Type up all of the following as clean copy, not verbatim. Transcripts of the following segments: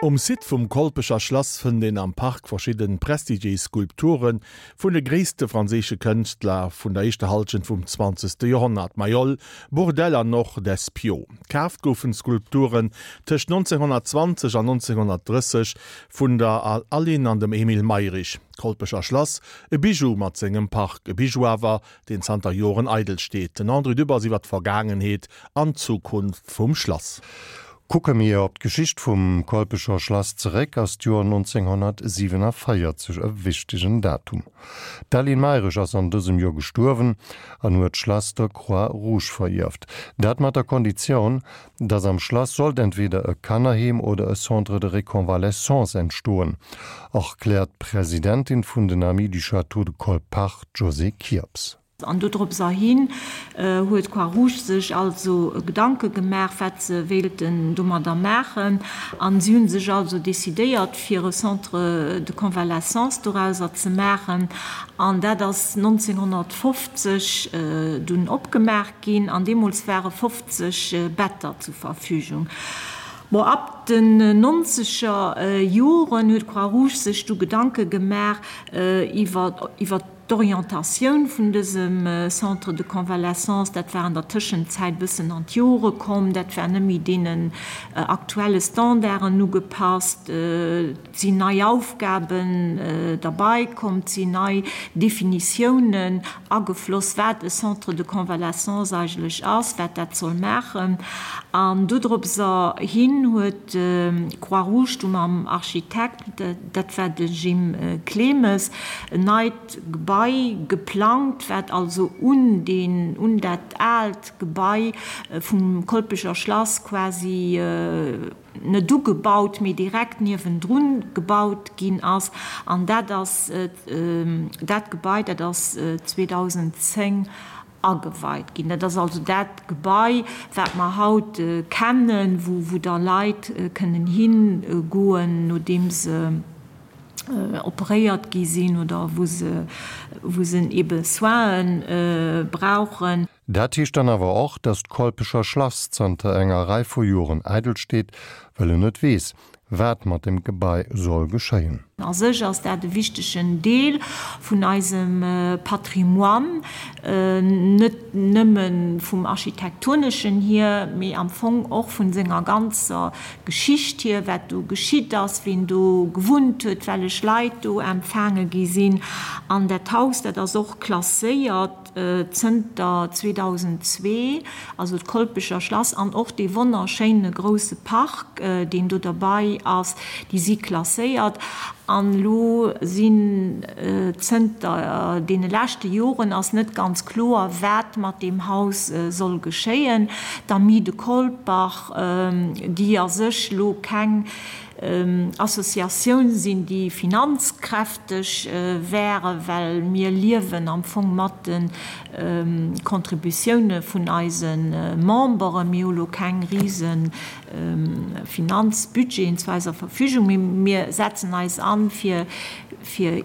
Um Site vum Kolpecher Schlass fënnt een am Park verschidden prestigiéis Skulpture vun de gréisste franséische Kënschtler vun der éischter Hallschent vum zwanzegste Joerhonnert, Mayol, Bourdelle an och Despiau. Kaaft goufen d'Skulpturen tëscht 1920 an 1930 vun der Aline an dem Emile Mayrisch. D'Kolpecher Schlass, e Bijou mat sengem Park, e Bijou awer, deen zanter Joren eidel steet. Den André Dübbers iwwer d'Vergaangenheet an d'Zukunft vum Schlass. Kucke mir op d'Geschicht vum Kolpecher Schlass zeréck, ass d'Joer 1947 e wichtegen Datum. D'Aline Mayrisch ass an dësem Joer gestuerwen an huet d'Schlass der Croix Rouge verierft. Dat mat der Konditioun, dass am Schlass sollt entweder e Kannerheem oder e Centre de réconvalescence entstoen, erkläert d'Presidentin vun den Amis du Château de Colpach, d'Josée Kirps. An dodropserhin huet d'Croix-Rouge sech also Gedanke gemaach, wat se wéilten domadder maachen. A si hu sech also decidéiert, fir e Centre de convalescence dorauser ze maachen. An dat ass 1950 dunn opgemaach ginn. An deemools ware 50 Better zur Verfügung. Bon, ab den nonzeger Joren huet d'Croix-Rouge sech du Gedanke gemaach iwwer D'Orientatioun vun dësem Centre de convalescence, dat war an der Tëschenzäit e bëssen an d'Jore komm, dat war net méi deenen aktuelle Standarden ugepasst, et sinn nei Aufgaben derbei komm, et sinn nei Definitiounen agefloss, wat e Centre de convalescence eigentlech ass, wat dat soll maachen. An dodropser hin huet d'Croix-Rouge du mam Architekt, dat war de Jim Clemes, en neit Gebai geplangt, wat also un deen, un dat aalt Gebai vum Kolpecher Schlass quasi net ugebaut, mee direkt niewendrun gebaut ginn ass. An dat ass dat Gebai, dat ass 2010 ageweit ginn. Dat ass also dat Gebai, wat mer haut kennen, wou da Leit kënnen higoen, nodeem se operéiert gi sinn oder wou se, wou se ebe Soine brauchen. Dat heescht dann awer och, datt d'Kolpecher Schlass zanter enger Rei vu Joren eidel steet, well en net weess, wat mat dem Gebai soll geschéien. A sech ass dat e wichtegen Deel vun eisem Patrimoine, net nëmme vum Architektoneschen hier, mee am Fong och vun senger ganzer Geschicht hier, wat do geschitt ass, ween do gewunnt huet, wellech Leit do empfaange gi sinn. An dat Haus, dat ass och klasséiert. Zënter 2002, also d'Kolpecher Schlass an och dee wonnerschéine grousse Park, deen do derbei ass, déi si klasséiert. An elo sinn zënter deene leschte Joren ass net ganz kloer, wat mat deem Haus soll geschéien. D'Amis de Colpach, déi a sech elo keng Associatioun sinn, déi finanzkräfteg wären, well mir liewen am Fong mat de Contributioune vun eise Memberen. Mir hu lo keng rise Finanzbudgeten zu eiser Verfügung, mee mir setzen eis an, fir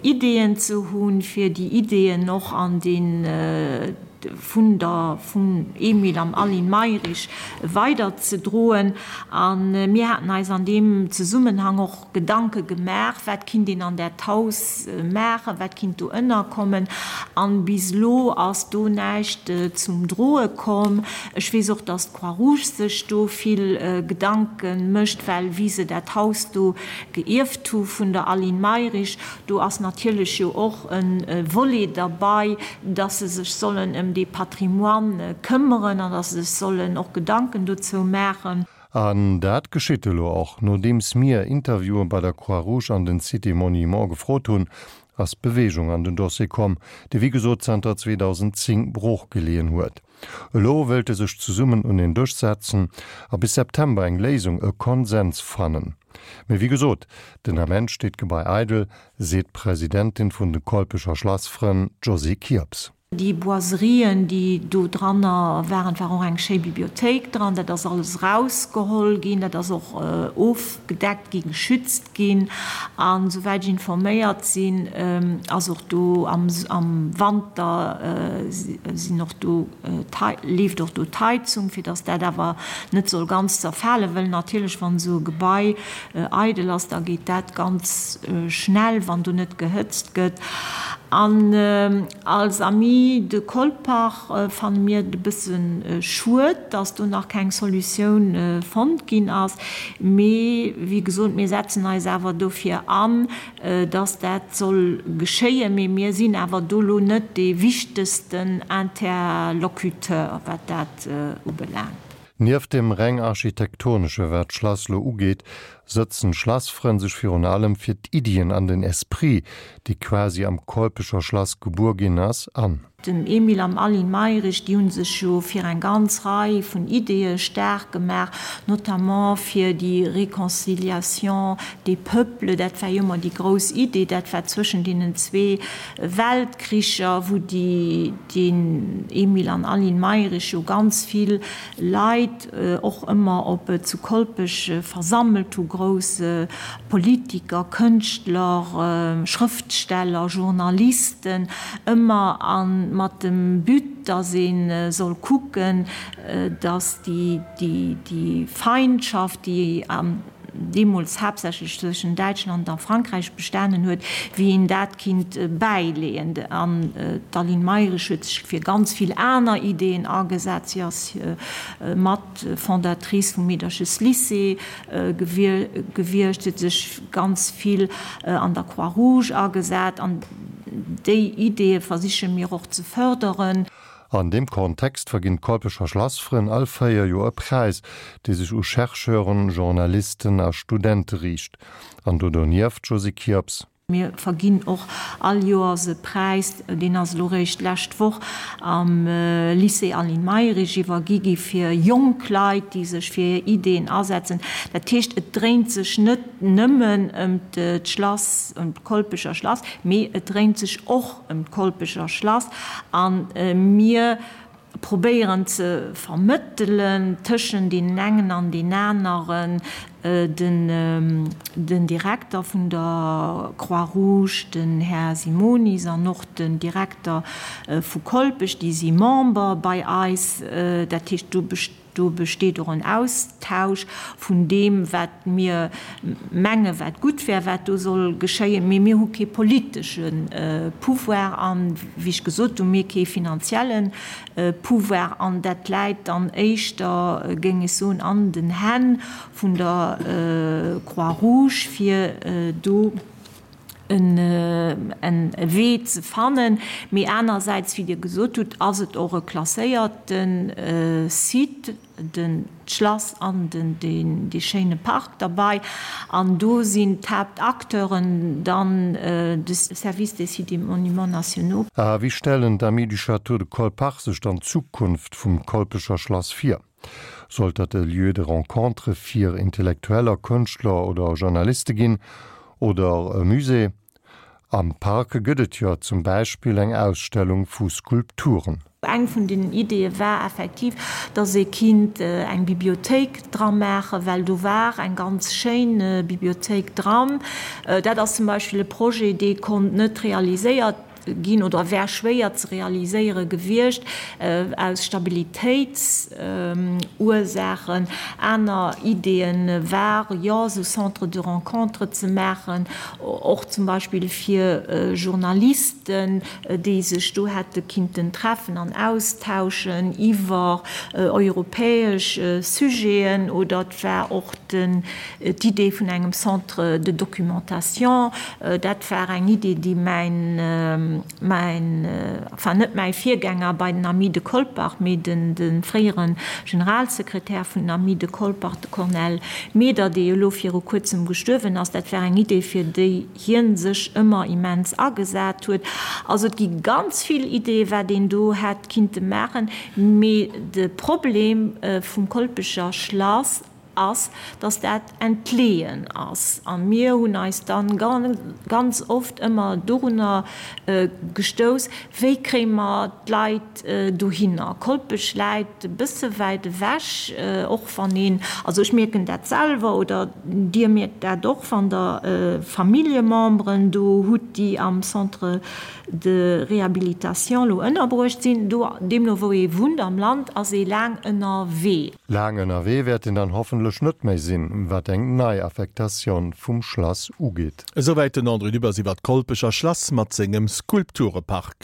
Ideeën ze hunn, fir déi Ideeën och an dee vun der vum Emile an Aline Mayrisch weider ze droen. A mir haten eis an deem Zesummenhang och Gedanke gemaach, wat kinnt een an dat Haus maachen, wat kinnt do ënnerkommen. An bis elo ass do näischt zum Droe komm. Ech weess och, dass d'Croix-Rouge sech do vill Gedanke mécht, well wéi se dat Haus do geierft hu vun der Aline Mayrisch, Do ass natierlech jo och e Volet derbei, dass se sech sollen ëm dee Patrimoine këmmeren an dass se sech sollen och Gedanken dozou maachen. An dat geschitt elo och. Nodeems mir Interviewen bei der Croix-Rouge an den Cité Monument gefrot hunn, ass Beweegung an den Dossier komm, dee wéi gesot zanter 2010 brooch geleeën huet. Elo wéilte sech zesummen un een Dësch setzen a bis September eng Léisung, e Konsens fannen. Mee wéi gesot, den Ament steet d'Gebai eidel, seet d'Presidentin vun de Kolpecher Schlassfrënn, d'Josée Kirps. Déi Boiserien, déi do dranner waren, et war och eng schéi Bibliothéik dran, dat ass alles erausgeholl ginn, dat ass och ofgedeckt ginn, geschützt ginn. An esouwäit ech informéiert sinn, ass och do am Wanter sinn och do, leeft och do d'Heizung, fir datt dat awer net soll ganz zerfalen, wëll natierlech, wann esou e Gebai eidel ass, da geet dat ganz schnell, wann do net gehëtzt gëtt. An als Amis de Colpach fanne mir et e bësse schued, dass do nach keng Solutioun fonnt ginn ass. Mee wéi gesot, mir setzen eis awer dofir an, dass dat soll geschéien. Mee mir sinn awer do lo net dee wichtegsten Interlocuteur, wat dat ubelaangt. Nieft dem reng architektonesche wat d'Schlass lo ugeet, sëtzen d'Schlassfrënn sech virun allem fir d'Iddien an den Esprit, dee quasi am Kolpecher Schlass gebuer ginn ass, an. Dem Emile an Aline Mayrisch, déi hu sech jo fir eng ganz Rei vun Ideeë staark gemaach, notamment fir déi Réconciliation des peuples, dat war jo ëmmer déi grouss Idee, dat war zwëschen deenen zwee Weltkricher, wou déi, den Emile an Aline Mayrisch jo ganz vill Leit och ëmmer op zu Kolpech versammelt hu, grouss Politiker, Kënschtler, Schrëftsteller, Journalisten, ëmmer a mat dem But, datt ee soll kucken, datt déi Feindschaft, déi deemools haaptsächlech zwëschen Däitschland a Frankräich bestanen huet, wéi een dat kinnt bäileeën. An d'Aline Mayrisch huet sech fir ganz vill aner Ideeën agesat. Si ass mat Fondatrice vum Meedercheslycée gewiescht, si huet sech ganz vill an der Croix-Rouge agesat. An déi Ideeë versiche mir och ze fërderen. An deem Kontext verginn d'Kolpecher Schlassfrënn all 4 Joer e Präis, dee sech u Chercheuren, Journalisten a Studente riicht. An do donieft, Josy Kirps. Mir verginn och all Joers e Präis, deen ass elo réischt d'lescht Woch am Lycée Aline Mayrisch iwwergi gi fir jonk Leit, déi sech fir hir Ideeën asetzen. Dat heescht, et dréint sech net nëmmen ëm d'Schlass, ëm d'Kolpecher Schlass, mee et dréint sech och ëm d'Kolpecher Schlass a mir probéieren ze vermëttelen tëschent deenen engen an deen aneren, den Direkter vun der Croix-Rouge, den Här Simonis, an och den Direkter vu Kolpech, déi si Member bei eis. Dat heescht, do Do besteet och en Austausch vun deem, wat mir menge wat gutt wär, wat do soll geschéien. Mee mir hu kee politesche Pouvoir an, wéi ech gesot hunn, mir kee finanzielle Pouvoir. An dat läit dann éischter, géing ech soen, an den Hänn vun der Croix-Rouge, fir do en Wee ze fannen. Mee anersäits, wéi Dir gesot hutt, ass et och e klasséierte Site, den d'Schlass an den dee schéine Park derbei. An do sinn d'Haaptacteuren dann de Service des Sites et Monuments nationaux. A wéi stellen d'Amis du Château de Colpach sech dann d'Zukunft vum Kolpecher Schlass vir? Sollt dat e Lieu de rencontre fir Intellektueller, Kënschtler oder Journaliste ginn? Oder e Musée? Am Park gëtt et jo zum Beispill eng Ausstellung vu Skulpturen. Eng vun den Ideeë war effektiv, dass ee kinnt eng Bibliothéik dra maachen, well do war eng ganz schéin Bibliothéik dran. Dat ass zum Beispill e Projet, dee konnt net realiséiert ginn oder wär schwéier ze realiséiere gewiescht aus Stabilitéitsursachen. Aner Ideeë ware jo, esou Centres de rencontre ze maachen, och zum Beispill fir Journalisten, déi sech do hätte kinnten treffen an austauschen iwwer europäesch Sujeten. Oder et war och den D'Idee vun engem Centre de documentation, dat war eng Idee, déi mäin, mäin, enfin net mäi Virgänger bei den Amis de Colpach, mee de fréiere Generalsekretär vun den Amis de Colpach, de Cornel Meder, dee jo elo viru kuerzem gestuerwen ass, dat war eng Idee, fir déi hie sech ëmmer immens agesat huet. Also et gi ganz vill Ideeë wat een do hätt kinnte maachen, mee de Problem vum Kolpecher Schlass. Ass, dass dat entleeën ass. A mir hunn eis dann ganz oft ëmmer dorunner gestouss, Wéi kréie mer d'Leit dohinner? Kolpech läit e bësse wäit ewech, och wann een, also ech mierken dat selwer oder Dir mierkt dat och, wann Der Familljememberen do hutt, déi am Centre de réhabilitation elo ënnerbruecht sinn. Do, deemno wou ee wunnt am Land, ass ee laang ënnerwee. Laang ënnerwee wäert een dann hoffentlech net méi sinn, wat eng nei Affektatioun vum Schlass ugeet. Esouwäit den André Dübbers iwwer d'Kolpecher Schlass mat sengem Skulpturepark.